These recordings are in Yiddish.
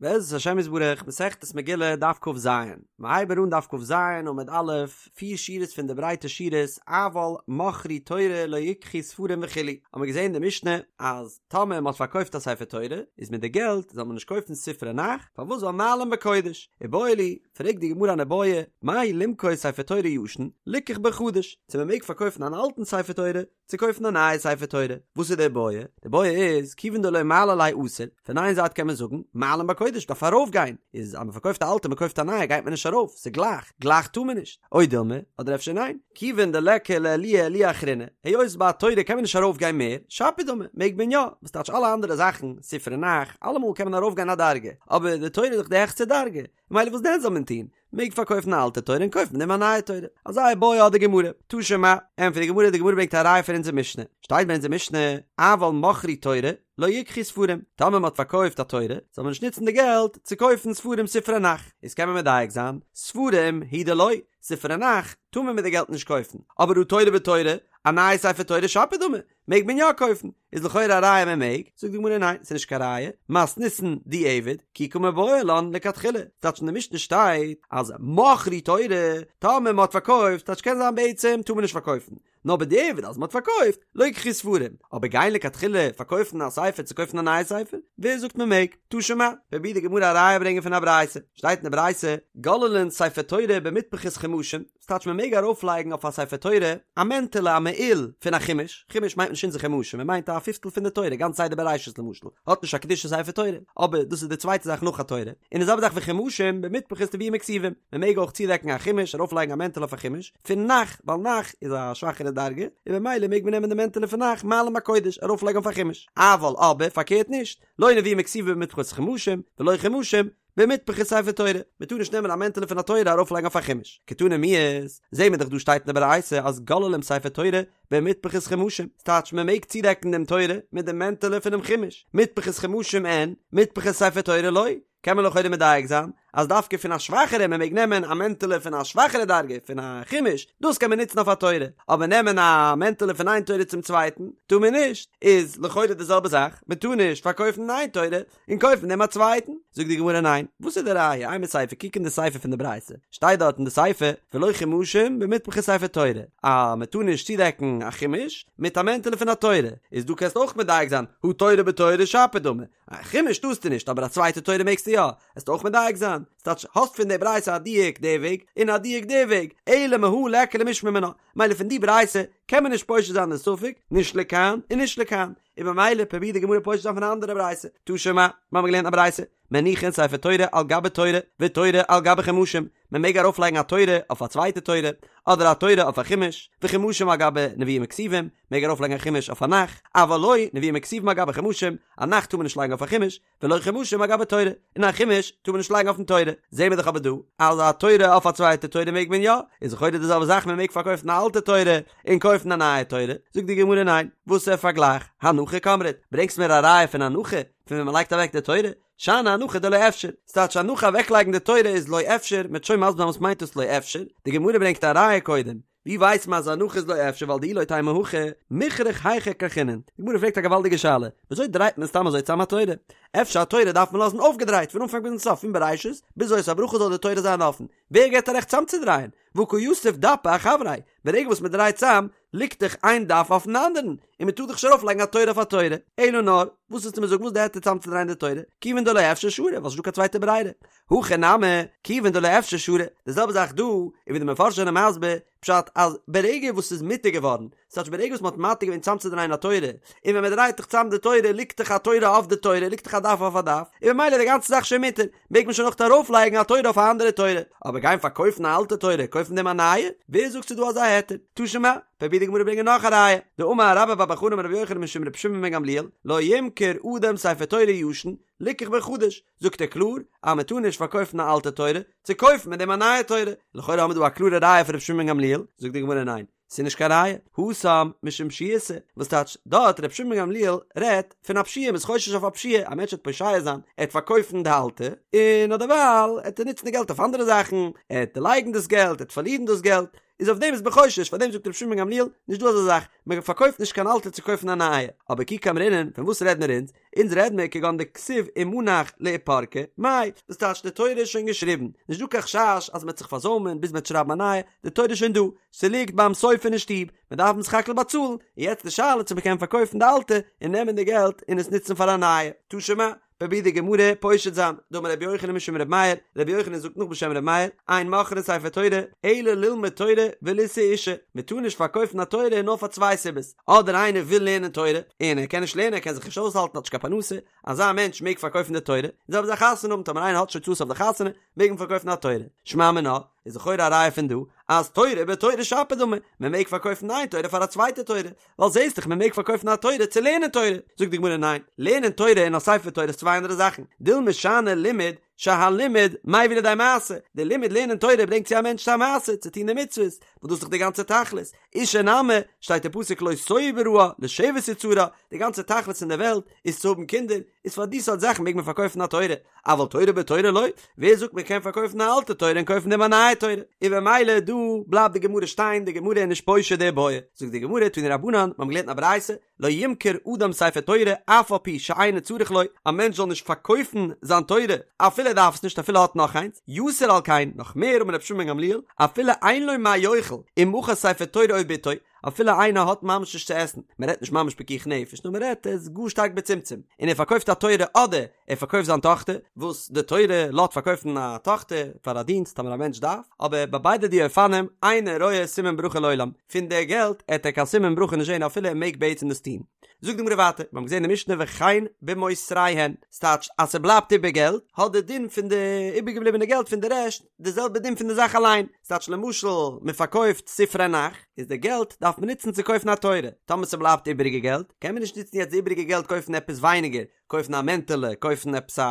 בעזרת השם יתברך, מסכת מגילה, דף כ"ז, מ'הייבן אן דף כ"ז עמוד א', פיר שורות פון די ברייטע שורות, אבל מכרו תורה לא יקחו ספרים וכו', האבן מיר געזען אין די משנה אז טאמער מ'האט פארקויפט א ספר תורה, איז מיט די געלט זאל מען נישט קויפן ספרי נ"ך, פארוואס ווייל מעלין בקודש? איבעיא להו, פרעגט די גמרא אן איבעיא, מהו למכור ספר תורה ישן, ליקח בו חדש, צו מ'מעג פארקויפן אן אלטן ספר תורה, צו קויפן א נייע ספר תורה. וואס איז די בעיא? די בעיא איז, כיוון דלא מעלי ליה אסור, פון איין זייט קען מען זאגן, מעלין בקודש דארף ארויף גיין, איז אז מען פארקויפט א אלטע מען קויפט א נייע גייט מען נישט ארויף, ס'איז גלייך, גלייך טאר מען נישט. או דילמא, אדער אפשר ניין, כיוון דליכא לעלויי עלויה אחרינא, היות ביי א תורה קען מען נישט ארויף גיין מער, שפיר דמי, מעג מען יא, וואס טייטש אלע אנדערע זאכן, ספרי נ"ך, אלעמאל קען מען ארויף גיין א דרגה, אבער די תורה איז דאך די העכסטע דרגה, ממילא וואס דען זאל מען טון? מעג פארקויפן א אלטע תורה און קויפן מיט דעם א נייע תורה. אזא איבעיא האט די גמרא. תא שמע, ענטפערט די גמרא, די גמרא ברענגט א ראיה פון אונזער משנה. שטייט ביי אונזער משנה, אבל מכרו תורה, לא יקחו ספרים. טאמער מען האט פארקויפט א תורה, זאל מען נישט נוצן די געלט צו קויפן ספרים ספרי נ"ך. איז קען מען מדייק זיין, ספרים הוא דלא, ספרי נ"ך טאר מען מיט די געלט נישט קויפן. אבער הא תורה בתורה, א נייע ספר תורה שפיר דמי, מעג מען יא קויפן? איז לכאורה א ראיה מען מעג, זאגט די גמרא ניין ס'איז נישט קיין ראיה, מתניתין דיעבד, כי קא מיבעיא לן לכתחילה, ס'טייטש אין די משנה שטייט אז מכרו תורה, טאמער מ'האט פארקויפט, טייטש קען זיין בעצם טאר מען נישט פארקויפן, נאר בדיעבד אז מ'האט פארקויפט, לא יקחו ספרים, אבער גיין לכתחילה פארקויפן א ספר צו קויפן א נייע ספר, ווער זאגט מען מעג? תא שמע, פרובירט די גמרא א ראיה ברענגען פון א ברייתא, שטייט אין די ברייתא, גוללין ספר תורה במטפחות חומשים, ס'טייטש מען מעג ארויפלייגן אויף א ספר תורה א מענטעלע א מעיל פון א חומש, חומש מיינט נישט אונזער חומשים מען מיינט א פיפטל פון די תורה, גאנץ סדר בראשית למשל האט נישט א קדושת ספר תורה, אבער דאס איז די צווייטע זאך נאך א תורה, און די זעלבע זאך וחומשים במטפחות נביאים וכתובים, מען מעג אויך צודעקן א חומש ארויפלייגן א מענטעלע אויף א חומש פון נ"ך, ווייל נ"ך איז א שוואכערע דרגה, און במילא מעג מען נעמען די מענטעלע פון נ"ך מעלין בקודש ארויפלייגן אויף א חומש, אבל אבער פארקערט נישט, לא נביאים וכתובים במטפחות חומשים, ולא חומשים, במטפחות ספר תורה, מען טאר נישט נעמען א מענטעלע פון א תורה ארויף לייגן אויף א חומש. קתני מיהת, זעהן מיר דאך דא שטייט אין די ברייתא אז גוללים ספר תורה במטפחות חומשים, ס'טייטש מען מעג צודעקן דעם תורה מיט דעם מענטעלע פונעם חומש, מטפחות חומשים אין, מטפחות ספר תורה לא, קען מען לכאורה מדייק זיין אז דווקא פון א שוואכערע מען מעג נעמען א מענטעלע פון א שוואכערע דרגה פון א חומש, דאס קען מען נוצן אויף א תורה, אבער נעמען א מענטעלע פון איין תורה צום צווייטן טאר מען נישט, איז לכאורה די זעלבע זאך, מען טאר נישט פארקויפן איין תורה און קויפן דעם א צווייטן? זאגט די גמרא ניין, וואס איז די ראיה? אימא סיפא, קוק אין די סיפא פון די ברייתא, שטייט דארט אין די סיפא, ולא חומשים במטפחות ספר תורה, אז מען טאר נישט צודעקן א חומש מיט א מענטעלע פון א תורה, איז דא קענסטו אויך מדייק זיין, הא תורה בתורה שפיר דמי, א חומש טארסטו נישט אבער א צווייטע תורה מעגסטו יא, וועסטו אויך מדייק זיין, ס'טייטש האסט פון די ברייתא א דיוק די וועג און א דיוק די וועג, אלא מהא ליכא למשמע מינה, מילא פון די ברייתא קען מען נישט פושט זיין די ספק, נישט לכאן און נישט לכאן. און במילא פרובירט די גמרא פושט זיין פון א אנדערע ברייתא, תא שמע, מיר האבן געלערנט א ברייתא, מניחין ספר תורה על גבי תורה, ותורה על גבי חומשים, מען מעג ארויף לייגן א תורה אויף א צווייטע תורה, אדער א תורה אויף א חומש, וחומשים על גבי נביאים וכתובים, מעג ארויף לייגן א חומש אויף א נ"ך, אבל לא נביאים וכתובים על גבי חומשים, א נ"ך טאר מען נישט לייגן אויף א חומש, ולא חומשים על גבי תורה, און א חומש טאר מען נישט לייגן אויפן תורה, זעהן מיר דאך אבער דא אז א תורה אויף א צווייטע תורה מעג מען יא, איז לכאורה די זעלבע זאך מען מעג פארקויפן א אלטע תורה און קויפן א נייע תורה, זאגט די גמרא ניין, וואסער פארגלייך, הנחה קאמרת, ברענגסט מיר א ראיה פון הנחה, פון ווען מען לייגט אוועק די תורה, שאני הנחה דלא אפשר, ס'טייטש הנחה אוועקלייגן די תורה איז לא אפשר, מ'וועט שוין מסביר זיין וואס מיינט דאס לא אפשר, די גמרא ברענגט א ראיה קודם, ווי ווייסט מען אז הנחה איז לא אפשר ווייל דאי לא תימא הכי מיכרך היכי כרכינן? די גמרא פרעגט א געוואלדיגע שאלה, וויאזוי דרייט מען סתם אזוי צאם א תורה? אפשר א תורה דארף מען לאזן אויפגעדרייט פון אנפאנג ביזן סוף פון בראשית ביז זאת הברכה זאל די תורה זיין אפן, ווער געבט א רעכט צאמצודרייען? והא קא יתיב דפא אחבריה, ברגע וואס מען דרייט צאם ליגט דאך איין דף אויפן אנדערן, און מען טאר דאך נישט ארויפלייגן א תורה אויף א תורה, אלא נאר, וואס ווילסטו מיר זאגן וואס די היתר צאמצודרייען די תורה? כיוון דלא אפשר שרי, ווייל ס'נישט דא קיין צווייטע ברירה. הכא נמי, כיוון דלא אפשר שרי, די זעלבע זאך דא, און ווי די מפרשים זענען מסביר, פשט אז ברגע וואס ס'איז מותר געווארן, ס'טייטש ברגע וואס מ'האט מתיר געווען צאמצודרייען א תורה, און ווען מ'דרייט דאך צאם די תורה ליגט דאך א תורה אויף די תורה, ליגט דאך א דף אויף א דף, און ממילא איז די גאנצע זאך שוין מותר, מעג מען שוין אויך ארויפלייגן א תורה אויף א אנדערע תורה, אבער גיין פארקויפן א אלטע תורה, קויפן דעם א נייע? ווער זאגט ס'איז דא אזא היתר? תא שמע, פרובירט די גמרא ברענגען נאך א ראיה, דאמר רבה בר בר חנה אמר רבי יוחנן משום רבי שמעון בן גמליאל, לא ימכור אדם ספר תורה ישן, ליקח בו חדש, זאגט ער קלאר אז מען טאר נישט פארקויפן א אלטע תורה צו קויפן מיט דעם א נייע תורה, לכאורה האבן מיר דא א קלארע ראיה פון רבי שמעון בן גמליאל, זאגט די גמרא ניין, ס'איז נישט קיין ראיה, התם משום פשיעותא, וואס טייטש דארט רבי שמעון בן גמליאל רעדט פון א פשיעה, מ'איז חושש אויף א פשיעה, א מענטש וועט פושע זיין, ער וועט פארקויפן די אלטע, און אדערווייל וועט ער נוצן די געלט אויף אנדערע זאכן, ער וועט דערלייגן דאס געלט, ער וועט פארלירן דאס געלט. איז אויף דעם איז מען חושש, פאר דעם זאגט רבי שמעון בן גמליאל, נישט דא אזא זאך, מען פארקויפט נישט קיין אלטע צו קויפן א נייע, אבער כי קאמרינן, פון וואס רעד מיר אונז? אונז רעד מיר כגון דכתיב ומנח לאיפרוקי, מאי, דאס טייטש די תורה איז שוין געשריבן, נישט דא קיין חשש אז מען וועט זיך פארזוימען ביז מען וועט שרייבן א נייע, די תורה איז שוין דא, ס'ליגט ביים סופר אין שטוב, מען דארף סך הכל באצאלן, און יעצט די שאלה צו מען קען פארקויפן די אלטע און נעמען די געלט און עס נוצן פאר א נייע. תא שמע, פרובירט די גמרא פושט זיין, דאמר רבי יוחנן משום רבי מאיר, רבי יוחנן זאגט נאך בשם רבי מאיר, אין מוכרין ספר תורה, אלא ללמוד תורה ולישא אישה, מען טאר נישט פארקויפן א תורה נאר פאר צוויי סיבות, אדער איינער וויל לערנען תורה, און ער קען נישט לערנען, ער קען זיך נישט אויסהאלטן, האט נישט קיין פרנסה, אזא מענטש מעג פארקויפן די תורה, און זעלבע זאך חתונה האבן, טאמער איינער האט נישט הוצאות אויף די חתונה, מעג מען פארקויפן א תורה. שמע מינה, איז לכאורה א ראיה פון דא, אז תורה בתורה שפיר דמי, מען מעג פארקויפן איין תורה פאר א צווייטע תורה, ווייל זעסט דאך מען מעג פארקויפן א תורה צו לערנען תורה. זאגט די גמרא ניין, לערנען תורה און א ספר תורה איז צוויי אנדערע זאכן, דילמא שאני לימוד שהלימוד מביא לידי מעשה, די לימוד לערנען תורה ברענגט צו א מענטש צו א מעשה, צו טון די מצוות, וואס דאס איז דאך די גאנצע תכלית, אישה נמי, שטייט אין פסוק לא תהו בראה, לשבת יצרה, די גאנצע תכלית אין די וועלט איז צו האבן קינדער, איז פאר די סארט זאכן מעג מען פארקויפן א תורה, אבל תורה בתורה לא, ווער זאגט מען קען פארקויפן א אלטע תורה און קויפן דעם א נייע תורה, און במילא דא בלייבט די גמרא שטיין, די גמרא איז נישט פושט די בעיא, זאגט די גמרא תנו רבנן, מיר האבן געלערנט אין א ברייתא, לא ימכור אדם ספר תורה אף על פי שאינו צריך לו, א מענטש זאל נישט פארקויפן זיין תורה אפילו ער דארף עס נישט אפילו ער האט נאך איינס, יתר על כן, נאך מער אמר רבי שמעון בן גמליאל, אפילו אין לו מה יאכל, ומכר ספר תורה או בתו, אפילו איינער האט ממש נישט צו עסן, מען רעדט נישט ממש פיקוח נפש, נאר מען רעדט ער איז גאר שטארק בצמצום, און ער פארקויפט א תורה אדער ער פארקויפט זיין טאכטער, וואס די תורה לאזט פארקויפן א טאכטער פאר א דינסט טאמער א מענטש דארף, אבער ביי ביידע די אופנים, אינו רואה סימן ברכה לעולם, פון די געלט עט ער קיין סימן ברכה נישט זען אפילו ער מעג בעצם דאס טון. זאגט די גמרא ווייטער, מיר האבן געזען אין משנה וכן במותריהן, ס'טייטש אז ס'בלייבט איבער געלט, האט די דין פון די איבערגעבליבענע געלט פון די רעשט די זעלבע דין פון די זאך אליין, ס'טייטש למשל מען פארקויפט ספרי נ"ך, איז די געלט דארף מען נוצן צו קויפן א תורה, טאמער ס'בלייבט איבעריגע געלט, קען מען נישט נוצן יעצט די איבעריגע געלט קויפן עפעס ווייניגער, קויפן א מענטעלע, קויפן עפעס א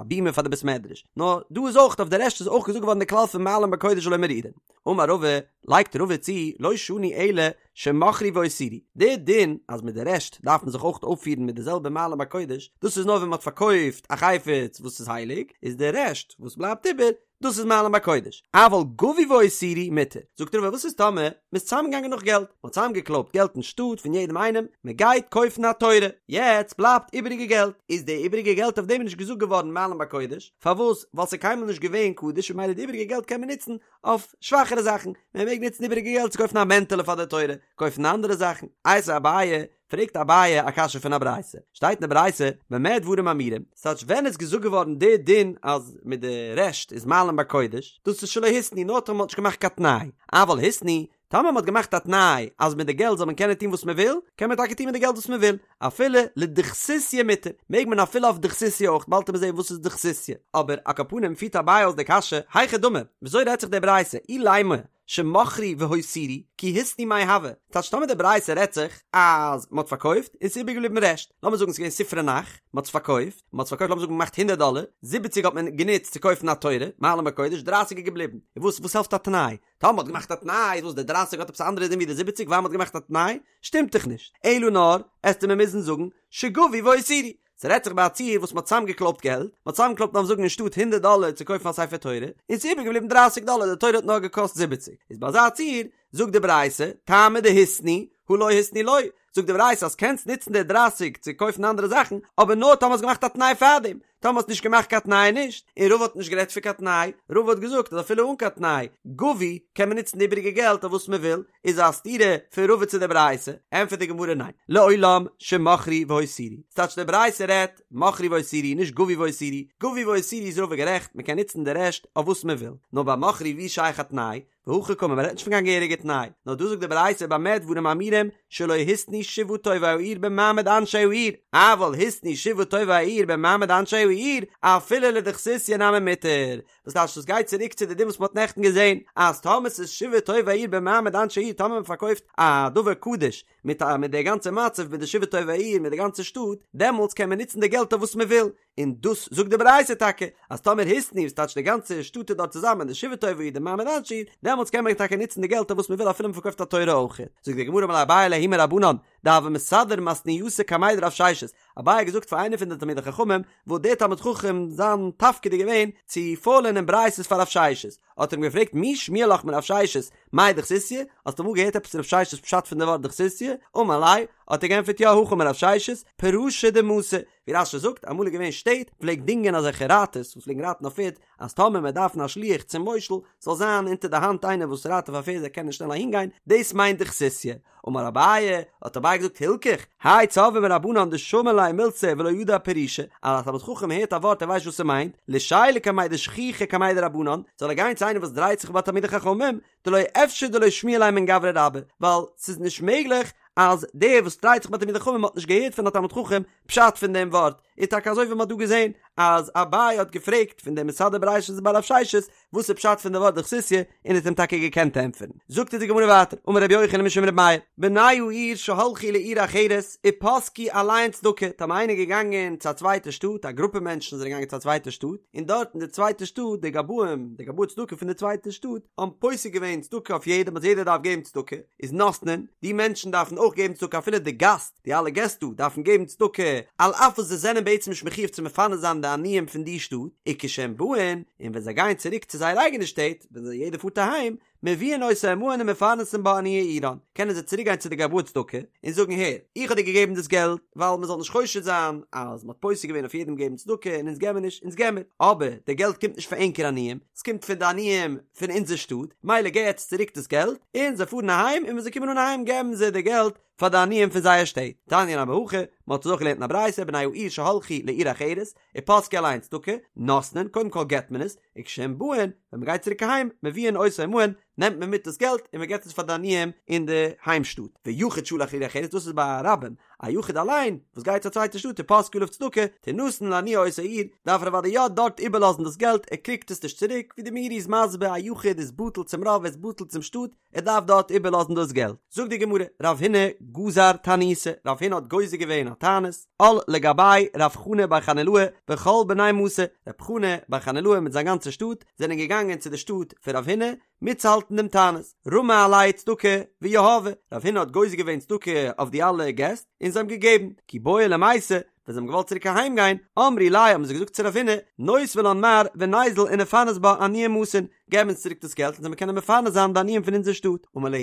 בימה פאר די בית מדרש, נאר דא איז אויך אויף די רעשט איז אויך געזאגט געווארן די כלל פון מעלין בקודש ולא מורידין. אמר רבא, לייגט רבא צו, לא שנו אלא שמכרו והותירו, די דין אז מיט די רעשט דארף מען זיך אויך אויפפירן מיט די זעלבע מעלין בקודש, דאס איז נאר ווען מען האט פארקויפט א חפץ וואס איז הייליג, איז די רעשט וואס בלייבט איבער, דאס איז מעלין בקודש, אבל גבו והותירו מותר, זאגט רבא וואס איז טאמער מען איז צוזאמגעגאנגען נאך געלט, מען האט צוזאמגעקלויבט געלט אין שטאט פון יעדעם איינעם, מען גייט קויפן א תורה, יעצט בלייבט איבעריגע געלט, איז די איבעריגע געלט אויף דעם איז נישט געזאגט געווארן מעלין בקודש, פארוואס? ווייל ס'איז קיינמאל נישט געווען קדוש און ממילא די איבעריגע געלט קען מען נוצן אויף שוואכערע זאכן, מען מעג נוצן איבעריגע געלט צו קויפן א מענטעלע פאר די תורה, קויפן אנדערע זאכן, איתיביה אביי, פרעגט אביי א קשיא פון א ברייתא, שטייט אין די ברייתא במה דברים אמורים, ס'טייטש ווען איז געזאגט געווארן די דין אז מיט די רעשט איז מעלין בקודש, דאס איז שלא התנו נאר טאמער מ'האט נישט געמאכט קיין תנאי, אבל התנו, טאמער מ'האט געמאכט א תנאי אז מיט די געלט זאל מען קענען טון וואס מ'וויל, קען מען טאקע טון מיט די געלט וואס מ'וויל, אפילו לדוכסוסיא מותר, מעג מען אפילו אויף דוכסוסיא אויך, באלד וועט מען זען וואס איז דוכסוסיא, אבער על כל פנים פירט אביי אויס די קשיא, היכי דמי, וויאזוי רעדט זיך די ברייתא, אילימא, שמכרו והותירו, כי התנו מאי הוי, טייטש טאמער די ברייתא רעדט זיך אז מען האט פארקויפט און ס'איז איבערגעבליבן רעשט, לאמיר זאגן ס'איז געווען ספרי נ"ך, מען האט עס פארקויפט, מען האט עס פארקויפט לאמיר זאגן געמאכט הונדערט דאלער, זיבעציג האט מען גענוצט צו קויפן א תורה, מעלין בקודש, דרייסיג איז געבליבן, און וואס וואס העלפט א תנאי? טאמער מען האט געמאכט א תנאי איז וואס די דרייסיג האט עפעס א אנדערע דין ווי די זיבעציג ווייל מען האט געמאכט א תנאי? שטימט דאך נישט, אלא נאר עסטו מיר מוזן זאגן שגבו והותירו, ס'רעדט זיך ביי א ציור וואס מ'האט צוזאמגעקלויבט געלט, מ'האט צוזאמגעקלויבט לאמיר זאגן אין שטאט הונדערט דאלער צו קויפן א ספר תורה, און ס'איז איבערגעבליבן דרייסיג דאלער, די תורה האט נאר געקאסט זיבעציג. איז ביי אזא ציור, זאגט די ברייתא, טעמא דהתנו, הא לא התנו לא, זאגט די ברייתא אז קענסט נוצן די דרייסיג צו קויפן אנדערע זאכן, אבער נאר טאמער האסט געמאכט א תנאי פארדעם, טאמער האסט נישט געמאכט קיין תנאי נישט, און רבא האט נישט גערעדט פון קיין תנאי, רבא האט געזאגט אז אפילו אן קיין תנאי, גבו, קען מען נוצן די איבעריגע געלט אויף וואס מען וויל, איז א סתירה פון רבא צו די ברייתא, ענטפערט די גמרא ניין, לעולם שמכרו והותירו, ס'טייטש די ברייתא רעדט מכרו והותירו נישט גבו והותירו, גבו והותירו איז רבא גערעכט מען קען נוצן די רעשט אויף וואס מען וויל, נאר ביי מכרו ווי איז שייך א תנאי, והכי קאמר מען רעדט נישט פון קיין געהעריגע תנאי, נאר דא זאגט די ברייתא במה דברים אמורים שלא התנו שבעה טובי העיר במעמד אנשי העיר, אבל התנו שבעה טובי העיר במעמד אנשי העיר אפילו לדוכסוסיא נמי מותר, וואס טייטש דאס גייט צוריק צו די דין וואס מ'האט נעכטן געזען אז טאמער ס'איז שבעה טובי העיר במעמד אנשי העיר טאמער מ'פארקויפט א דבר קדוש מיט א מיט די גאנצע מצב מיט די שבעה טובי העיר מיט די גאנצע שטאט דעמאלטס קען מען נוצן די געלט אויף וואס מ'וויל און דאס זאגט די ברייתא טאקע אז טאמער התנו וואס טייטש די גאנצע שטאט איז דארט צוזאמען די שבעה טובי העיר די מעמד אנשי העיר דעמאלטס קען מען טאקע נוצן די געלט אויף וואס מ'וויל אפילו מ'פארקויפט א תורה אויך זאגט די גמרא אמר ליה אביי לההוא מרבנן דהוה מסדר מתניתא קמיה דרב ששת אביי האט געזאגט פאר איינער פון די תלמידי חכמים, וואס דער תלמיד חכם זיין תפקיד איז געווען צו פארלערנען ברייתות פאר רב ששת, האט ער אים געפרעגט מי שמיע לך מרב ששת מאי דכסיסיא, האסט אמאל געהערט עפעס רב ששת פשט פון די ווארט דכסיסיא? אמר ליה, האט ער געענטפערט יא הכי אמר רב ששת, פרשא דמתא, ווי רש"י זאגט, אמאל איז געווען שטעט, פלעגט דינגען אזעלכע רייטערס וואס פלעגן רייטן אויף פערד, אז טאמער מען דארף א שליח צום מושל, זאל זיין אונטער די האנט איינער וואס רייט אויף א פערד זאל קענען שנעל אהינגיין, דאס מיינט דכסיסיא. אמר אביי, האט אביי געזאגט הילכך, האי צורבא מרבנן דשמע ליה מילתא ולא ידע פירושא, אז א תלמיד חכם הערט א ווארט ער ווייסט וואס ס'מיינט, לישיילה קמיה דשכיחי קמיה דרבנן, זאל ער גיין צו איינער וואס דרייט זיך ביי תלמידי חכמים, דלא אפשר דלא שמיע ליה מן גברא רבה, ווייל ס'איז נישט מעגליך אז דער וואס דרייט זיך ביי תלמידי חכמים האט נישט געהערט פון א תלמיד חכם פשט פון דעם ווארט, איז טאקע אזוי ווי מ'האט דא געזען אז אביי האט געפרעגט פון דעם מסדר ברישתא בי רב ששת וואס איז פשט פון די ווארט דכסיסיא און האט אים טאקע געקענט ענטפערן. זאגט אונז די גמרא ווייטער, אמר רבי יוחנן משום רבי מאיר, בני העיר שהלכו לעיר אחרת ופסקו עליהן צדקה, טאמער איינער איז געגאנגען צו א צווייטע שטאט, א גרופע מענטשן זענען געגאנגען צו א צווייטע שטאט, און דארט אין די צווייטע שטאט די גבאים, די גבאי צדקה פון די צווייטע שטאט, האבן פוסק געווען צדקה אויף יעדעם אז יעדער דארף געבן צדקה, איז נותנין, די מענטשן דארפן אויך געבן צדקה אפילו די גאסט, די אלע געסט דא דארפן געבן צדקה על אף וואס זיי זענען בעצם נישט מחיוב צו מפרנס זיין די עניים פון די שטאט, וכשהם באין, און ווען זיי גייען צוריק צו זייער אייגענע שטעט, ווען זיי יעדער פארט אהיים, מביאין אותו עמהן ומפרנסין בה עניי עירן, קענען זיי צוריק גיין צו די גבאי צדקה און זאגן הער, איך האב דיר געגעבן דאס געלט ווייל מען זאל נישט חושד זיין אז מען האט פוסק געווען אויף יעדעם געבן צדקה און אונז געבן נישט, אונז געבן מיר, אבער די געלט קומט נישט פון ענקער עניים, עס קומט פון די עניים פון אונזער שטאט, מילא געב יעצט צוריק דאס געלט, און זיי פארן אהיים און ווען זיי קומען אן אהיים געבן זיי די געלט פאר די עניים פון זייער שטעט. תניא נמי הכי, מען האט עס אויך געלערנט אין א ברייתא, בני העיר שהלכו לעיר אחרת, ופסקו עליהן צדקה, נותנין, קודם כל געבט מען עס, וכשהם באין, ווען מען גייט צוריק אהיים, מביאין אותו עמהן, נעמט מען מיט דאס געלט און מען געבט עס פאר די עניים אין די היים שטאט. ויחיד שהלך לעיר אחרת, דאס איז ביי א רבים, א יחיד אליין, וואס גייט צו א צווייטע שטאט ופסקו עליו צדקה, תינתן לעניי אותה עיר, דארף ער אוודאי יא דארט איבערלאזן דאס געלט, ער קריגט עס נישט צוריק, ווי די מאירי איז מסביר, א יחיד איז בטל צום רוב, ער איז בטל צום שטאט, ער דארף דארט איבערלאזן דאס געלט. זאגט די גמרא, רב הונא גזר תעניתא, רב הונא האט גוזר געווען א תענית, על לגביה רב חנא בר חנילאי וכל בני מתיה, רב חנא בר חנילאי מיט זיין גאנצע שטאט זענען געגאנגען צו די שטאט פון רב הונא מיטצוהאלטן דעם תענית, רמי עלייהו צדקה ויהבי, רב הונא האט גוזר געווען צדקה אויף די אלע געסט און זיי האבן געגעבן, כי בעו למיתי, ווען זיי האבן געוואלט צוריק אהיים גיין, אמרי ליה האבן זיי געזאגט צו רב הונא, נותבה לן מר וניזיל ונפרנס בה עניי מאתין, געב אונז צוריק דאס געלט און זאל מיר קענען מפרנס זיין די עניים פון אונזער שטאט, אמר להו,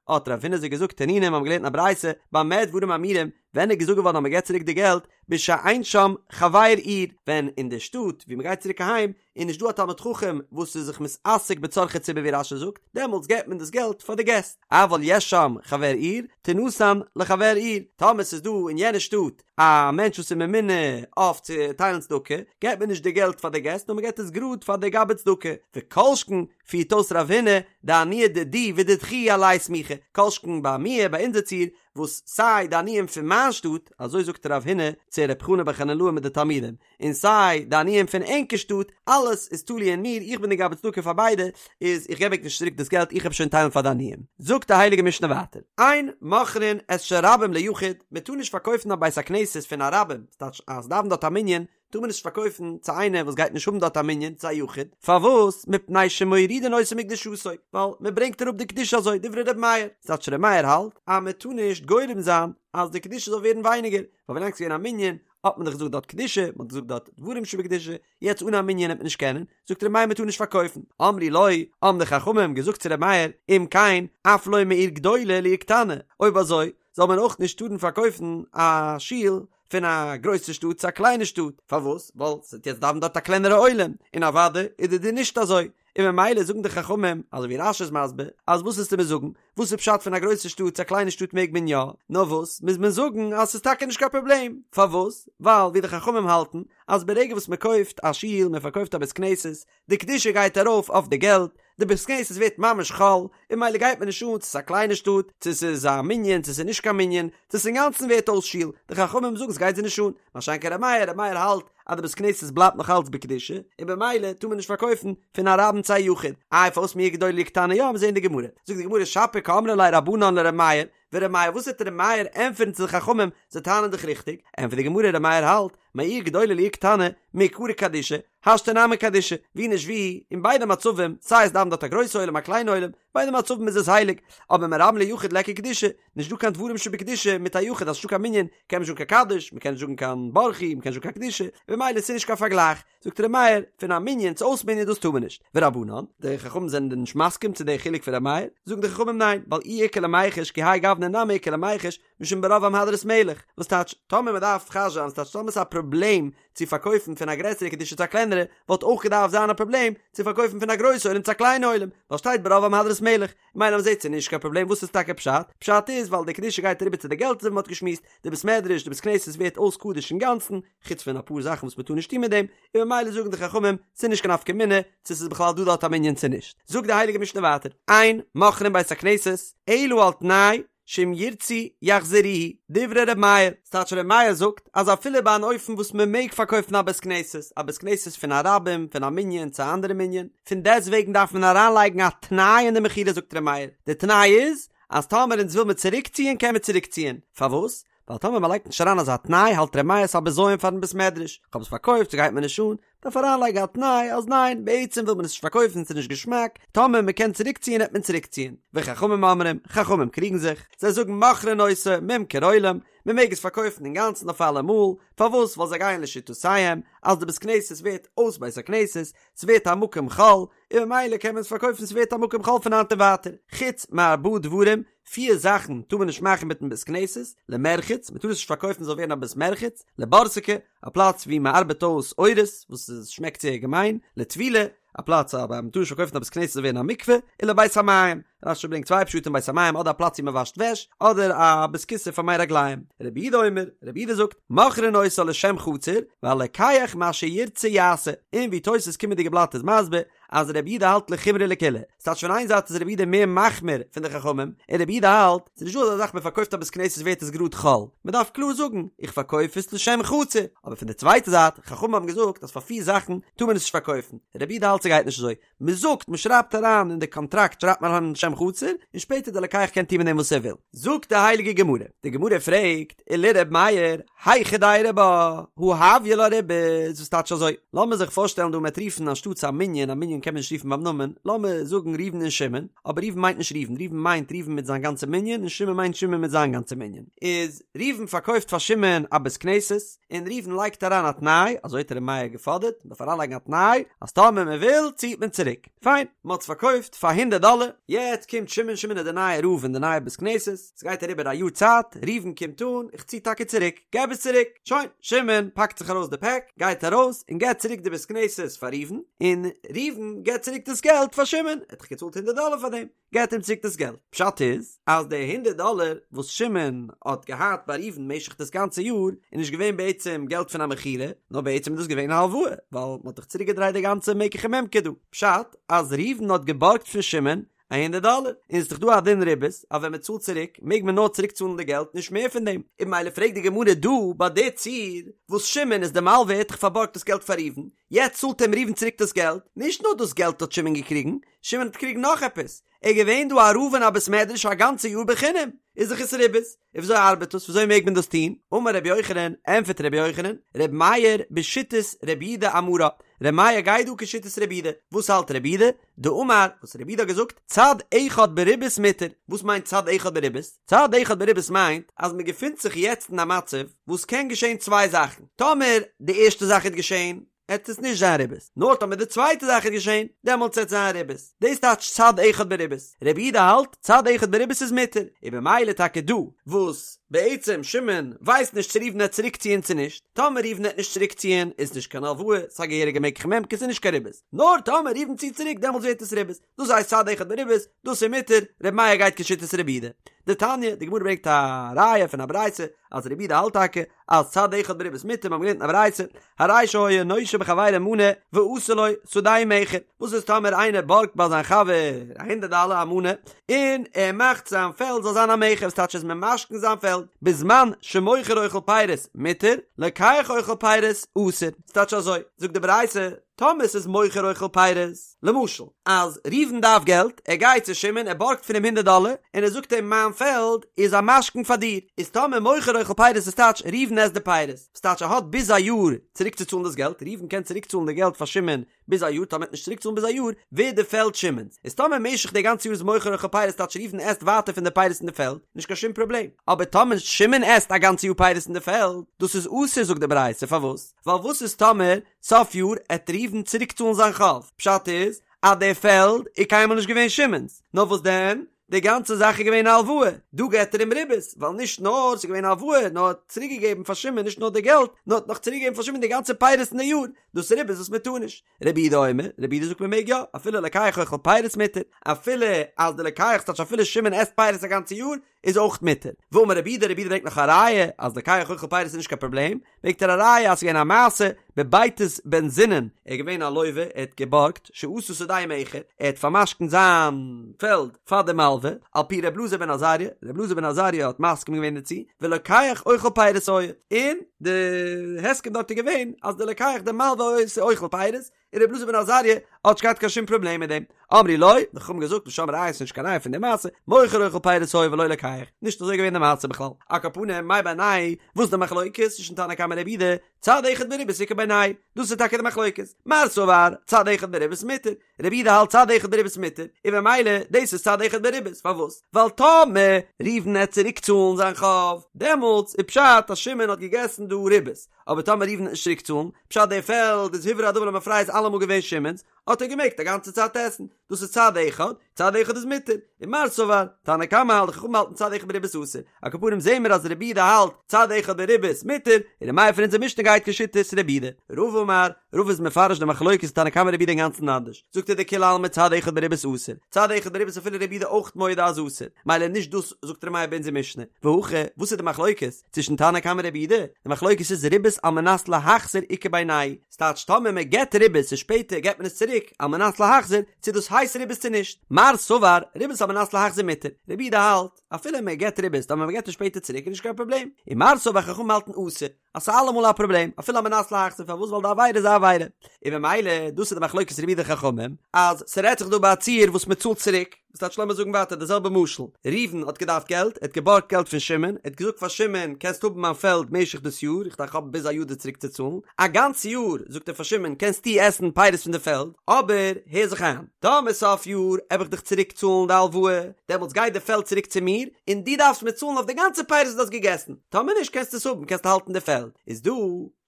האט רב הונא זיי געזאגט תנינא, מיר האבן געלערנט אין א ברייתא, במה דברים אמורים, ווען איז געזאגט געווארן אז מען געבט צוריק די געלט, בשאין שם חבר עיר, ווען אין די שטאט וואו מען גייט צוריק אהיים, איז נישט דא א תלמיד חכם וואס איז זיך מתעסק בצרכי ציבור ווי רש"י זאגט, דעמאלטס געבט מען דאס געלט פאר די געסט, אבל יש שם חבר עיר, תינתן לחבר עיר, טאמער ס'איז דא אין יענע שטאט א מענטש וואס איז ממונה אויף צו טיילן צדקה, געבט מען נישט די געלט פאר די געסט נאר מען געבט עס גראד פאר די גבאי צדקה, וכל שכן פירט אויס רב הונא דעניי דידי ודידכו עלי סמיכי, כל שכן ביי מיר ביי אונזער ציור וואס סיי די עניים פון מיין שטאט, אזוי זאגט רב הונא צו ר' חנא בר חנילאי מיט די תלמידים, און סיי די עניים פון ענקער שטאט, אלעס איז תלוי אין מיר, איך בין די גבאי צדקה פאר ביידע, איז איך געב ענק נישט צוריק דאס געלט, איך האב שוין טיילן פאר די עניים. זאגט די הייליגע משנה ווייטער, אין מוכרין את של רבים ליחיד, מען טאר נישט פארקויפן א בית הכנסת פון א רבים, ס'טייטש אז ס'דאווענט דארט א מנין, טאר מען נישט פארקויפן צו איינער וואס גייט נישט האבן דארט א מנין, צו א יחיד, פארוואס? מפני שמורידין אותו מקדושתו, ווייל מען ברענגט אראפ די קדושה אזוי, דברי ר' מאיר, ס'טייטש ר' מאיר האלט אז מען טאר נישט גורם זיין אז די קדושה זאל ווערן ווייניגער, ווייל ווילאנג ס'איז געווען א מנין האט מען דאך געזאגט דארט קדושה, מען האט געזאגט דארט דברים שבקדושה, יעצט אן א מנין וועט מען נישט קענען, זאגט ר' מאיר מען טאר נישט פארקויפן, אמרו לו, האבן די חכמים געזאגט צו ר' מאיר, אם כן, אף לא מעיר גדולה לעיר קטנה, אויב אזוי, זאל מען אויך נישט טארן פארקויפן א שול פון א גרויסע שטאט צו א קליינע שטאט, פארוואס? ווייל ס'וועט יעצט דאווענען דארט א קלענערע עולם, און אוודאי איז די דין נישט אזוי, און ממילא זאגן די חכמים, אזוי ווי רש"י איז מסביר, אז וואס וועסטו מיר זאגן, וואס איז פשט פון א גרויסע שטאט צו א קליינע שטאט מעג מען יא, נאר וואס מוז מען זאגן אז ס'איז טאקע נישט קיין פראבלעם, פארוואס? ווייל ווי די חכמים האלטן, אז ברגע וואס מען קויפט א שול, מען פארקויפט א בית כנסת, די קדושה גייט ארויף אויף די געלט, די בית כנסת ווערט ממש חול, און ממילא גייט מיר נישט אן צו ס'איז א קליינע שטאט, צו ס'איז א מנין, צו ס'איז נישט קיין מנין, צו ס'אינגאנצן ווערט אויס שול, די חכמים זאגן ס'גייט זיי נישט אן, מה שאין כן ר' מאיר, ר' מאיר האלט אז די בית כנסת בלייבט נאך אלץ בקדושה, און במילא טאר מען נישט פארקויפן פון א רבים צו א יחיד. איי פארוואס מעיר גדולה לעיר קטנה יא, מיר זעהן די גמרא. זאגט די גמרא שפיר קאמרי ליה רבנן לר' מאיר, ור' מאיר וואס וועט ר' מאיר ענטפערן צו די חכמים, זיי טענה'ן דאך ריכטיג, ענטפערט די גמרא ר' מאיר האלט, מעיר גדולה לעיר קטנה, מעיקרא קדישא, השתא נמי קדישא, ווי נישט ווי, אין ביידע מצבים, סיי עס דאווענט דארט א גרויסע עולם א קליינע עולם, ביידע מצבים איז עס הייליג, אבער מרבים ליחיד ליכא קדושה, נישט דא קיין דברים שבקדושה מיט א יחיד אז ס'נישטא קיין מנין, קען מען נישט זאגן קיין קדיש, מ'קען נישט זאגן קיין ברכו, מ'קען נישט זאגן קיין קדושה, און במילא ס'נישט קיין פארגלייך. זאגט ר' מאיר, פון א מנין צו אויס מנין דאס טאר מען נישט. ורבנן, די חכמים זענען נישט מסכים צו די חילוק פון ר' מאיר, זאגן די חכמים ניין, ווייל אי איכא למיחש כי האי גוונא נמי איכא למיחש, משום ברוב עם הדרת מלך, וואס טייטש, טאמער מען דארף חש זיין, ס'טייטש טאמער ס'איז א פראבלעם צו פארקויפן פון א גרעסערע קדושה צו א קלענערע, וואלט אויך געדארפט זיין א פראבלעם צו פארקויפן פון א גרויסע עולם צו א קליינע עולם, ווייל שטייט ברוב עם הדרת מלך, ממילא מ'זעט ס'איז נישט קיין פראבלעם, וואס איז טאקע פשט? פשט איז ווייל די קדושה גייט אריבער צו די געלט אזוי ווי מ'האט געשמועסט, די בית מדרש, די בית כנסת ווערט אויס קדוש אינגאנצן, חוץ פון אפאר זאכן וואס מ'טאר נישט טון מיט דעם, און ממילא זאגן די חכמים ס'איז נישט קיין נפקא מינה צו ס'איז בכלל דא דארט א מנין צו נישט. זאגט די הייליגע משנה ווייטער, אין מוכרין בית הכנסת אלא על תנאי שאם ירצו יחזירוהו, דברי ר' מאיר, ס'טייטש ר' מאיר זאגט אז אפילו ביי אן אופן וואס מ'מעג פארקויפן א בית כנסת, א בית כנסת פון א רבים, פון א מנין צו א אנדערע מנין, פון דעסטוועגן דארף מען אריינלייגן א תנאי אין די מכירה זאגט ר' מאיר, די תנאי איז אז טאמער אונז וויל מיר צוריקציען קען מען צוריקציען, פארוואס? ווייל טאמער מ'לייגט נישט אריין אזא תנאי האלט ר' מאיר ס'א בזיון פארן בית מדרש, כ'האב עס פארקויפט ס'גייט מיר נישט אן, דארף אריינלייגן א תנאי אז ניין בעצם וויל מען עס נישט פארקויפן ס'איז נישט געשמאק, טאמער מ'קען צוריקציען העט מען צוריקציען. וחכמים אומרים, חכמים קריגן זיך, זיי זאגן מוכרין אותו ממכר עולם, מ'מעג עס פארקויפן אינגאנצן אויף אלעמאל, פארוואס ווייל זיי גייען לשיטותיהם אז די בית כנסת ווערט אויס בית הכנסת, ס'ווערט א מקום חול, און ממילא קען מען עס פארקויפן ס'ווערט א מקום חול פון היינט און ווייטער, חוץ מארבעה דברים, פיר זאכן טאר מען נישט מאכן מיטן בית כנסת, למרחץ, מען טאר עס נישט פארקויפן ס'זאל ווערן א בית מרחץ, לבורסקי, א פלאץ וואו מען ארבעט אויס עורות, וואס עס שמעקט זייער געמיין, לטבילה, א פלאץ א מען טאר נישט פארקויפן א בית כנסת זאל ווערן א מקווה, און לבית המים, רש"י ברענגט צוויי פשטים בית המים אדער א פלאץ וואו מען וואשט וועש, אדער א בית כסא פאר מי רגליים. רבי יהודה אומר, רבי יהודה זאגט, מוכרין אותה לשם חצר, והלוקח מה שירצה יעשה, און ווי תוס' קומענדיגע בלאט איז מסביר, אז רבי יהודה האלט לחומרא לקולא, ס'טייטש פון איין זייט איז רבי יהודה מער מחמיר פון די חכמים, און רבי יהודה האלט, ס'איז נישטא אזא זאך מען פארקויפט א בית כנסת ווערט עס גראד חול, מען דארף קלאר זאגן, איך פארקויף עס לשם חצר, אבער פון די צווייטע זייט, חכמים האבן געזאגט אז פאר פיר זאכן טאר מען עס נישט פארקויפן, רבי יהודה האלט ס'גייט נישט אזוי, מען זאגט, מען שרייבט אריין אין די קאנטראקט שרייבט מען אריין לשם חצר, און שפעטער די לוקח קען טון מיט דעם וואס ער וויל. זאגט די הייליגע גמרא, די גמרא פרעגט, ולר' מאיר, היכי דיירי בה, הא הויא לה ריבית, וואס טייטש אזוי? לאמיר זיך פארשטעלן דא מ'עט רופן אנשטאטס א מנין, א מנין קען מען נישט רופן ביים נאמען, לאמיר זאגן ראובן און שמעון, אבער ראובן מיינט נישט ראובן, ראובן מיינט ראובן מיט זיין גאנצע מנין, און שמעון מיינט שמעון מיט זיין גאנצע מנין. איז ראובן פארקויפט פאר שמעון א בית כנסת, און ראובן לייגט אריין א תנאי, אזוי האט ר' מאיר געפאדערט, מ'דארף אריינלייגן א תנאי, אז טאמער מ'וויל ציעט מען צוריק. פיין, מ'האט עס פארקויפט פאר הונדערט דאלער, יעצט קומט שמעון, שמעון איז דער נייער רב אין די נייע בית כנסת, ס'גייט אריבער א יאר צייט, ראובן קומט אן, איך צי טאקע צוריק, געב עס צוריק, שוין, שמעון פאקט זיך ארויס די פעק, גייט ארויס, און געבט צוריק די בית כנסת פאר ראובן, און ראובן געבט צוריק דאס געלט פאר שמעון, ער האט דאך געצאלט הונדערט דאלער פאר דעם, געבט אים צוריק דאס געלט, פשט איז, אז די הונדערט דאלער וואס שמעון האט געהאט ביי ראובן משך דאס גאנצע יאר, איז נישט געווען בעצם געלט פון א מכירה, נאר בעצם איז דאס געווען א הלוואה, ווייל מ'האט דאך צוריק געדרייט די גאנצע מקח וממכר דא, פשט, אז ראובן האט געבארגט פון שמעון א הונדערט דאלער, און ס'איז דאך דא א דין ריבית אז ווען מ'צאלט צוריק מעג מען נאר צוריק צאלן די געלט נישט מער פון דעם, און ממילא פרעגט די גמרא דא ביי די ציור וואס שמעון איז די מלווה ער האט דאך פארבארגט דאס געלט פאר ראובן, יעצט צאלט אים ראובן צוריק דאס געלט, נישט נאר דאס געלט האט שמעון געקריגן, שמעון האט געקריגן נאך עפעס, ער איז געווען דא א רב אין א בית מדרש א גאנצע יאר בחינם, איז דאך עס ריבית, און וויאזוי ארבעט דאס וויאזוי מעג מען דאס טון, אמר רבי יוחנן, ענפערט רבי יוחנן, רבי מאיר בשיטת רבי יהודה אמרה, רבי מאיר גייט דא כשיטת רבי יהודה, וואס האלט רבי יהודה? דאמר, וואס רבי יהודה האט געזאגט, צד אחד בריבית מותר, וואס מיינט צד אחד בריבית? צד אחד בריבית מיינט אז מען געפינט זיך יעצט אין א מצב וואס קען געשען צוויי זאכן, טאמער די ערשטע זאך וועט געשען, עט עס נישט זיין ריבית, נאר טאמער די צווייטע זאך וועט געשען, דעמאלטס עט זיין ריבית, דאס טייטש צד אחד בריבית, רבי יהודה האלט צד אחד בריבית איז מותר, און במילא טאקע דא, וואס בעצם שמעון ווייסט נישט צו ראובן עט צוריק ציען צו נישט, טאמער ראובן עט נישט צוריק ציען איז נישט קיין הלוואה, ס'איז א געהעריגע מקח וממכר ס'איז נישט קיין ריבית, נאר טאמער ראובן ציט צוריק דעמאלטס ווערט עס ריבית, דאס הייסט צד אחד בריבית, דאס איז מותר, רבי מאיר גייט כשיטת רבי יהודה. דתניא, די גמרא ברענגט א ראיה פון א ברייתא אז רבי יהודה האלט טאקע אז צד אחד בריבית מותר, מיר האבן געלערנט אין א ברייתא, הרי שהיה נושה בחבירו מנה ועשה לו שדהו מכר, וואס איז טאמער איינער בארגט ביי זיין חבר א הונדערט דאלער א מנה, און ער מאכט זיין פעלד זאל זיין א מכר, וואס טייטש ער איז ממשכן זיין פעלד, בזמן שמוכר אוכל פירות מותר, לוקח אוכל פירות אסור, ס'טייטש אזוי, זאגט די ברייתא. טאמער ס'איז מוכר אוכל פירות, למשל, אז ראובן דארף געלט, ער גייט צו שמעון, ער בארגט פון אים הונדערט דאלער, און ער זאגט אים מיין פעלד איז א משכון פאר דיר, איז טאמער מוכר אוכל פירות איז טייטש ראובן עסט די פירות, וואס טייטש ער האט ביז א יאר צוריק צו צאלן דאס געלט, ראובן קען צוריק צאלן די געלט פאר שמעון ביז א יאר, טאמער ער וועט נישט צוריק צאלן ביז א יאר, ווערט די פעלד שמעון'ס, איז טאמער משך די גאנצע יאר איז מוכר אוכל פירות טייטש ראובן עסט ווייטער פון די פירות אין די פעלד, נישט קיין שום פראבלעם, אבער טאמער שמעון עסט א גאנצע יאר פירות אין די פעלד, דאס איז אסור זאגט די ברייתא, פארוואס? ווייל וואס איז טאמער סוף יאר עט ראובן צוריק צאלן זיין חוב, פשט איז אז די פעלד איז קיינמאל נישט געווען שמעון'ס, נאר וואס דען, די גאנצע זאך איז געווען א הלוואה, דא געט ער אים ריבית, ווייל נישט נאר ס'איז געווען א הלוואה, נאר ער האט צוריק געגעבן פאר שמעון נישט נאר די געלט, נאר האט נאך צוריק געגעבן פאר שמעון די גאנצע פירות אין די יאר, דאס איז ריבית וואס מען טאר נישט. רבי יהודה אומר, רבי יהודה זאגט מען מעג יא, אפילו לוקח אוכל פירות מותר, אפילו אז די לוקח ס'טייטש אפילו שמעון עסט פירות א גאנצע יאר, איז אויך מותר. ואמר רבי יהודה, רבי יהודה ברענגט נאך א ראיה אז לוקח אוכל פירות איז נישט קיין פראבלעם, ברענגט ער א ראיה אז ס'איז געווען א מעשה בבייתוס בן זונין, ער איז געווען א לוה, ער האט געבארגט, שעשה שדהו מאחד, ער האט פאר'משכנ'ט זיין פעלד פאר די מלווה, על פי ר' אלעזר בן עזריה, ר' אלעזר בן עזריה האט מסכים געווען דערצו, ולוקח אוכל פירות היה, און די הסכם דארט איז געווען אז די לוקח די מלווה איז אוכל פירות, און רבי אלעזר בן עזריה האט נישט געהאט קיין שום פראבלעם מיט דעם. אמרו לו, די חכמים געזאגט משם ראיה ס'נישט קיין ראיה פון די מעשה, מוכר אוכל פירות היה ולא לוקח, נישט אזוי געווען די מעשה בכלל. על כל פנים, מאי בינייהו, וואס איז די מחלוקת צווישן תנא קמא און רבי יהודה, צד אחד בריבית איכא בינייהו, דאס איז טאקע די מחלוקת. מר סבר, צד אחד בריבית מותר, רבי יהודה האלט צד אחד בריבית מותר, און במילא דאס איז צד אחד בריבית, פארוואס? ווייל טאמער ראובן עט צוריק צאלן זיין חוב, דעמאלטס איז פשט אז שמעון האט געגעסן דא ריבית, אבער טאמער ראובן עט נישט צוריק צאלן, פשט די פעלד איז הוברר הדבר למפרע איז אלעמאל געווען שמעון'ס, האט ער געמעגט א גאנצע צייט עסן, דאס איז צד אחד, צד אחד איז מותר, און מר סבר, תנא קמא האלט די חכמים האלטן צד אחד בריבית אסור, על כל פנים זעהן מיר אז רבי יהודה האלט צד אחד בריבית מותר, און ר' מאיר פון אונזער משנה גייט כשיטת רבי יהודה. רבא אמר, רבא איז מפרש די מחלוקת תנא קמא רבי יהודה אינגאנצן אנדערש, זאגט ער דכולי עלמא צד אחד בריבית אסור, צד אחד בריבית אפילו רבי יהודה אויך מודה אז אסור, מילא נישט דאס זאגט ר' מאיר באונזער משנה, והכא, וואס איז די מחלוקת? צווישן תנא קמא רבי יהודה, די מחלוקת איז ריבית על מנת להחזיר איכא בינייהו, ס'טייטש טאמער מען געט ריבית און שפעטער געט מען עס צוריק על מנת להחזיר, צו דאס הייסט ריבית צו נישט. מר סבר, ריבית על מנת להחזיר מותר, רבי יהודה האלט, אפילו מען געט ריבית טאמער מען געט עס שפעטער צוריק איז נישט קיין פראבלעם, און מר סבר חכמים האלטן אסור, אז ס'איז אלעמאל א פראבלעם, אפילו על מנת להחזיר, פארוואס ווייל די עבירה איז א עבירה. און ממילא דאס איז די מחלוקת רבי יהודה חכמים, אז ס'רעדט זיך דא ביי א ציור וואס מען צאלט צוריק, וואס טייטש לאמיר זאגן ווייטער די זעלבע משל, ראובן האט געדארפט געלט, ער האט געבארגט געלט פון שמעון, ער האט געזאגט פאר שמעון קענסט האבן מיין פעלד משך דאס יאר, איך דארף האבן ביז א יאר דיר צוריק צו צאלן, א גאנץ יאר זאגט ער פאר שמעון קענסטו עסן פירות פון די פעלד, אבער הער זיך איין, טאמער סוף יאר עב איך דיך צוריק צאלן די הלוואה, דעמאלטס גייט די פעלד צוריק צו מיר, און דו דארפסט מיר צאלן אויף די גאנצע פירות וואס דו האסט געגעסן, טאמער נישט קענסטו עס האבן, קענסטו האלטן די פעלד, איז דא.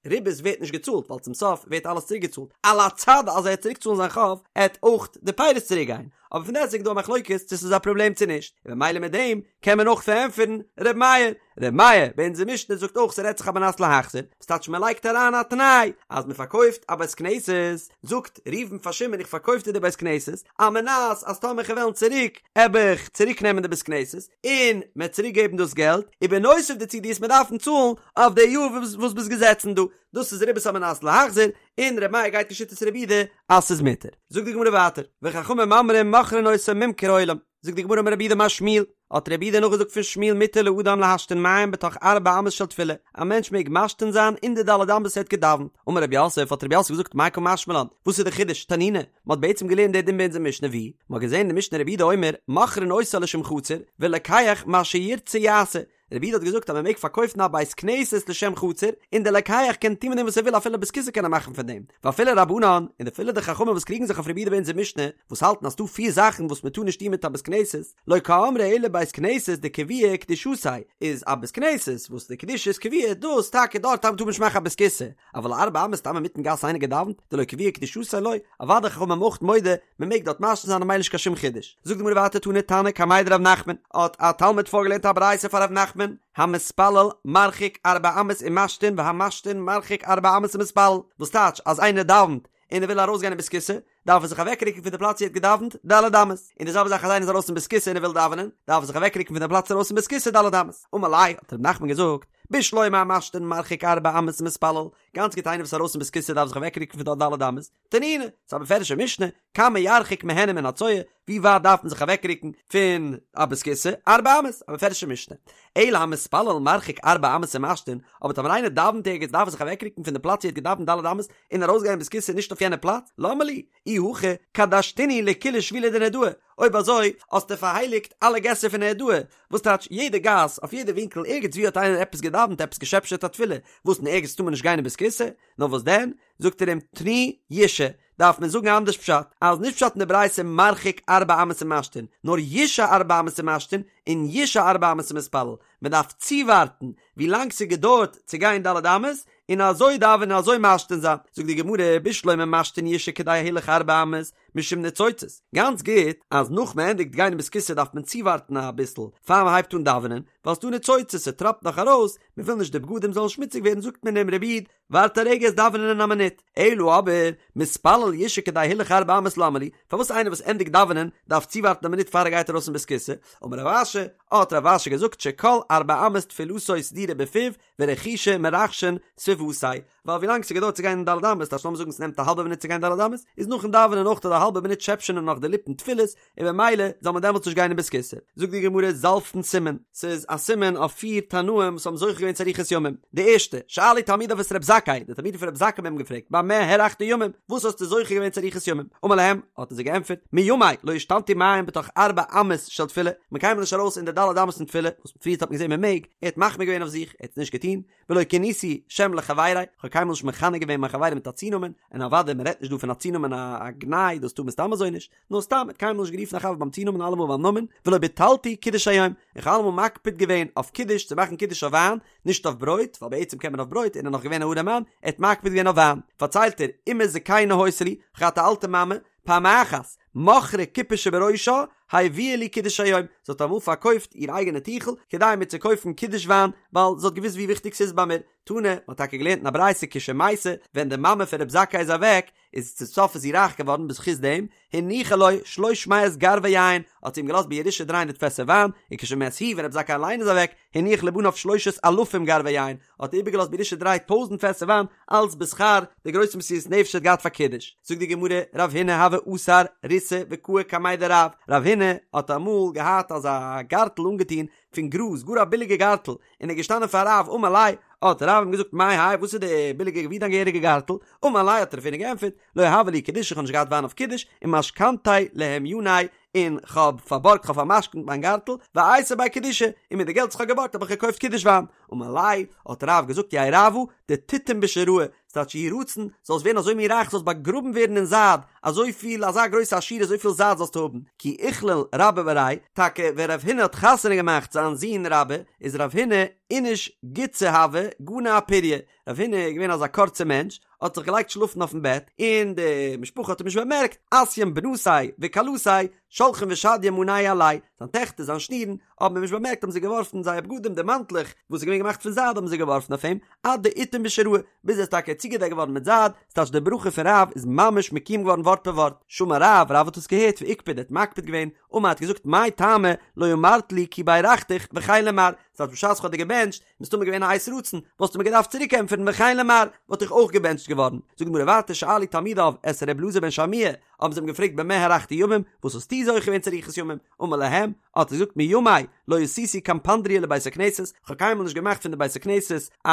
ריבית ווערט נישט געצאלט ווייל צום סוף ווערט אלעס צוריק געצאלט על הצד אז ער עט צוריק צאלן זיין חוב עט אויך די פירות צוריק גיין אבער פון דעסטוועגן איז דא א מחלוקת צו ס'איז א פראבלעם צו נישט און ממילא מיט דעם קען מען אויך פארענטפערן ר' מאיר ר' מאיר ביי אונזער משנה זאגט אויך ס'רעדט זיך על מנת להחזיר וואס טייטש מ'לייגט אריין א תנאי אז מ'פארקויפט א בית כנסת זאגט ראובן פאר שמעון איך פארקויף דיר די בית כנסת על מנת אז טאמער כ'וועל וועלן צוריק עב איך צוריק נעמען די בית כנסת און מ'עט צוריק געבן דאס געלט ובנוסף דערצו דו עסט מיר דארפן צאלן אויף די יאר וואס ביסט געזעצן דא, דאס איז ריבית על מנת להחזיר, און ר' מאיר גייט כשיטת רבי יהודה אז ס'איז מותר. זאגט די גמרא ווייטער, וחכמים אומרים מוכרין אותו ממכר עולם, זאגט די גמרא אמר רב יהודה אמר שמואל, האט רב יהודה נאכגעזאגט פון שמואל מותר לאדם להשתין מים בתוך ארבע אמות של תפילה, א מענטש מעג משתין זיין אין די ד' אמות וואס ער האט געדאווענט, אמר רב יוסף, האט רב יוסף געזאגט מאי קא משמע לן, וואס איז די חידוש, תנינא, מען האט בעצם געלערנט די דין ביי אונזער משנה ווי, מען האט געזען אין די משנה רבי יהודה אומר, מוכרין אותה לשם חצר, ולוקח מה שירצה יעשה, רבי יהודה האט געזאגט אז מען מעג פארקויפן א בית כנסת לשם חצר, און דער לוקח קען טון מיט דעם וואס ער וויל אפילו בית כסא קען ער מאכן פון דעם, ואפילו רבנן, און אפילו די חכמים וואס קריגן זיך אויף רבי יהודה ביי אונזער משנה, וואס האלטן אז ס'דא פיר זאכן וואס מען טאר נישט טון מיט א בית כנסת, לא קאמרי אלא בית כנסת דקביעא קדושתיה, איז א בית כנסת וואס די קדושה איז קבוע, דאס טאקע דארט טאר מען נישט מאכן א בית כסא, אבל ארבע אמות סתם אינמיטן גאס איינער געדאווענט, דלא קביעא קדושתיה לא, אוודאי חכמים אויך מודה, מען מעג דארט משתין זיין ממילא נישט קיין שום חידוש. זאגט די גמרא ווייטער תני תנא קמיה דרב נחמן, האט א תלמיד פארגעלערנט א ברייתא פאר רב נחמן, המתפלל מרחיק ארבע אמות ומשתין והמשתין מרחיק ארבע אמות ומתפלל, וואס טייטש אז איינער דאווענט און ער וויל ארויסגיין אין בית כסא, דארף ער זיך אוועקרוקן פון די פלאץ ווי ער האט געדאווענט ד' אמות, און די זעלבע זאך אז איינער איז ארויס אין בית כסא און ער וויל דאווענען, דארף ער זיך אוועקרוקן פון די פלאץ ארויס אין בית כסא ד' אמות. אמר ליה, האט רב נחמן געזאגט, בשלמא המשתין מרחיק ארבע אמות ומתפלל, גאנץ גוט איינער וואס איז ארויס אין בית כסא דארף זיך אוועקרוקן פון דארט ד' אמות, תנינא, ס'איז א מפורש'ע משנה, כמה ירחיק מהן ומן הצואה, ווי ווייט דארף מען זיך אוועקרוקן פון א בית כסא, ארבע אמות, א מפורש'ע משנה. אלא המתפלל מרחיק ארבע אמות ומשתין, אבער טאמער איינער דאווענט ערגעץ דארף ער זיך אוועקרוקן פון די פלאץ ווי ער האט געדאווענט ד' אמות און ארויסגיין אין בית כסא נישט אויף יענע פלאץ, למה לי? אי הכי קדשתינהו לכולהו שבילי דנהרדעא, אויב אזוי האסטו פארהייליגט אלע געסער פון נהרדעא, וואס טייטש יעדע גאס, אויף יעדע ווינקל ערגעץ ווי האט איינער עפעס געדאווענט עפעס געשעפשעט א תפילה, וואס אין ערגעץ טאר מען נישט גיין אין בית כסא? נאר וואס דען? זאגט ער אים תני ישהא, דארף מען זאגן אנדערש פשט, אז נישט פשט אין די ברייתא מרחיק ארבע אמות ומשתין, נאר ישהא ארבע אמות ומשתין און ישהא ארבע אמות ומתפלל, מען דארף צואווארטן ווי לאנג ס'געדויערט צו גיין ד' אמות, און אזוי דאווענען און אזוי משתין זיין, זאגט די גמרא בשלמא משתין ישהא כדי הילוך ארבע אמות, משום ניצוצות, גאנץ גוט אז נאך מען ענדיגט גיין אין בית כסא דארף מען צואווארטן אביסל פאר מען הייבט אן דאווענען, ווייל ס'דא ניצוצות ס'טראפט נאך ארויס, מען וויל נישט די בגדים זאלן שמוציג ווערן זאגט מען אים רבי איד ווארט א רגע עסט דאווענען אין א מינוט, אלא אבער מתפלל ישהא כדי הילוך ארבע אמות למה לי, פארוואס איינער וואס ענדיגט דאווענען דארף צואווארטן א מינוט פאר ער גייט ארויס אין בית כסא, אמר רב אשי, האט רב אשי געזאגט שכל ארבע אמות תפילתו סדורה בפיו ורחישי מרחשין סביבותיה, ווייל ווילאנג ס'געדויערט צו גיין אין ד' אמות, טייטש לאמיר זאגן ס'נעמט א האלבע מינוט צו גיין ד' אמות, איז נאכן דאווענען אויך די האלבע מינוט שעפשענען נאך די ליפן תפילות, און במילא זאל מען דעמאלטס נישט גיין אין בית כסא. זאגט די גמרא זלפין סימן, ס'איז א סימן אויף פיר תנאים וואס האבן זוכה געווען צו אריכות ימים. די ערשטע, שאלו תלמידיו את רב זכאי, די תלמידים פון רב זכאי האבן אים געפרעגט, במה הארכת ימים, וואס האסטו זוכה געווען צו אריכות ימים? אמר להם, האט ער זיי געענטפערט, מימי לא השתנתי מים בתוך ארבע אמות של תפילה, כ'בין קיינמאל נישט ארויס אין די ד' אמות פון תפילה, וואס פריערט האט מען געזען מען מעג, ער האט מחמיר געווען אויף זיך, ער האט עס נישט געטון, ולא כניתי שם לחבירי, איך האב קיינמאל נישט מכנה געווען מיין חברים מיט א צונאמען, און אוודאי מען רעדט נישט דא פון א צונאמען א גנאי, דאס טאר מען סתם אזוי נישט, נאר סתם, ער האט קיינמאל נישט גערופן א חבר ביים צונאמען אלעמאל ביים נאמען, ולא ביטלתי קידוש היום, איך האב אלעמאל מקפיד געווען אויף קידוש צו מאכן קידוש אויף וויין, נישט אויף ברויט, ווייל בעצם קען מען אויף ברויט, און ער איז נאך געווען א ארעמאן, ער האט מקפיד געווען אויף וויין. פארציילט ער, אמא זקנה היתה לי, איך האב געהאט א אלטע מאמע, פעם אחת, מכרה כיפה שבראשה, הביאה לי קידוש היום, זי האט אמאל פארקויפט איר אייגענע טיכל, כדי מיר צו קויפן קידוש וויין, ווייל זי האט געוואוסט ווי וויכטיג ס'איז ביי מיר. תנא, מען האט טאקע געלערנט אין א ברייתא כשמתה, ווען די מאמע פון רב זכאי איז אוועק, איז צום סוף איז זי רייך געווארן בזכות דעם, הניחה לו שלוש מאות גרבי יין, האט זי אים געלאזט בירושה דריי הונדערט פעסער וויין, וכשמת הוא, ווען רב זכאי אליין איז אוועק, הניח לבניו שלושת אלפים גרבי יין, האט ער איבערגעלאזט בירושה דריי טויזנט פעסער וויין, אלץ בשכר די גרויסע מסירות נפש ער האט געהאט פאר קידוש. זאגט די גמרא, רב הונא הוה אסר ריתא וקאי קמיה דרב, רב הונא האט אמאל געהאט אזא גארטל אנגעטון פון גראז, גאר א ביליגע גארטל, און ער איז געשטאנען פאר רב, אמר ליה, האט רב אים געזאגט מאי האי וואס איז די ביליגע ווי דיין געהעריגע גארטל, אמר ליה האט רב הונא געענטפערט, לא הוה לי קידושא איך האב נישט געהאט וויין אויף קידוש, ומשכנתיה להמיוני, און כ'האב פארבארגט כ'האב פאר'משכנ'ט מיין גארטל, ואייתי ביה קידושא, און מיט די געלט וואס כ'האב געבארגט האב איך געקויפט קידוש וויין. אמר ליה, האט רב געזאגט יהא רעוא דתיטום בשיראי, ס'טייטש יהי רצון, זאלסט ווערן אזוי מין רייך זאלסט באגראבן ווערן אין זייד, אזויפיל, אזא גרויסע עשירות אזויפיל זייד זאלסטו האבן, כי איכליל רבה בריה, טאקע ווען רב הונא האט חתונה געמאכט זיין זון רבה, איז רב הונא איניש גוצא הוה, גני אפוריא, רב הונא איז געווען אזא קורצע מענטש, האט זיך געלייגט שלאפן אויפן בעט, און די משפחה האט אים נישט באמערקט, אתיין בנתיה וכלתיה, שלחין ושדיין מאנייהו עליה, זיין טעכטער, זיין שנירן, האבן אים נישט באמערקט האבן זיי געווארפן זייער בגדים די מאנטלעך וואס איז געווען געמאכט פון זייד האבן זיי געווארפן אויף אים, עד דאיטום בשיראי, ביז ער איז טאקע צוגעדעקט געווארן מיט זייד, ס'טייטש די ברכה פון רב איז ממש מקוים געווארן ווארט פער ווארט, שמע רב, רב האט עס געהערט ואיקפד ער האט מקפיד געווען, אמר האט געזאגט מאי טעמא לא אמרת לי כי ברכתיך וכן למר, ס'טייטש בשעת כ'האב דיר געבענטשט, מסתמא געווען א עת רצון, וואלסטו מיר געדארפט צוריק ענטפערן וכן למר, וואלט איך אויך געבענטשט געווארן. זאגט די גמרא ווייטער שאלו תלמידיו את ר' אלעזר בן שמוע, האבן זיי אים געפרעגט במה הארכת ימים, וואס האסטו זוכה געווען צו אריכות ימים? אמר להם, האט ער געזאגט מימי לא עשיתי קפנדריא לבית הכנסת, כ'האב קיינמאל נישט געמאכט פון די בית הכנסת א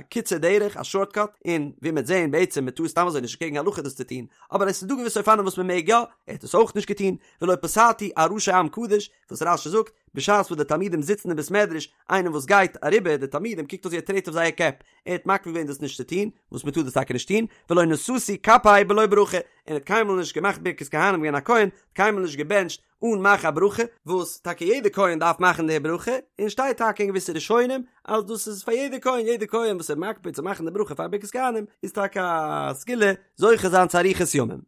קיצור דרך, א שארטקאט, און ווי מ'וועט זען בעצם מ'טאר סתם אזוי נישט קעגן הלכה דאס צו טון, אבער עס איז דא געוויסע אופנים וואס מ'מעג יא, ער האט עס אויך נישט געטון, ולא פסעתי על ראשי עם קדוש, וואס רש"י זאגט, בשעת וואס די תלמידים זיצן אין בית מדרש, איינער וואס גייט אריבער די תלמידים קוקט אויס ווי ער טרעט אויף זייער קעפ, ער האט מקפיד געווען דאס נישט צו טון, וואס מען טאר דאס טאקע נישט טון, ולא נשאתי כפאי בלא ברכה, און ער האט קיינמאל נישט געמאכט ברכת כהנים געווען א כהן, האט קיינמאל נישט געבענטשט אן מאכן א ברכה, וואס טאקע יעדער כהן דארף מאכן די ברכה, און שטייט טאקע אין געוויסע ראשונים אז דאס איז פאר יעדער כהן, יעדער כהן וואס איז מקפיד צו מאכן די ברכה פאר ברכת כהנים איז טאקע א סגולה זוכה זיין צו אריכות ימים.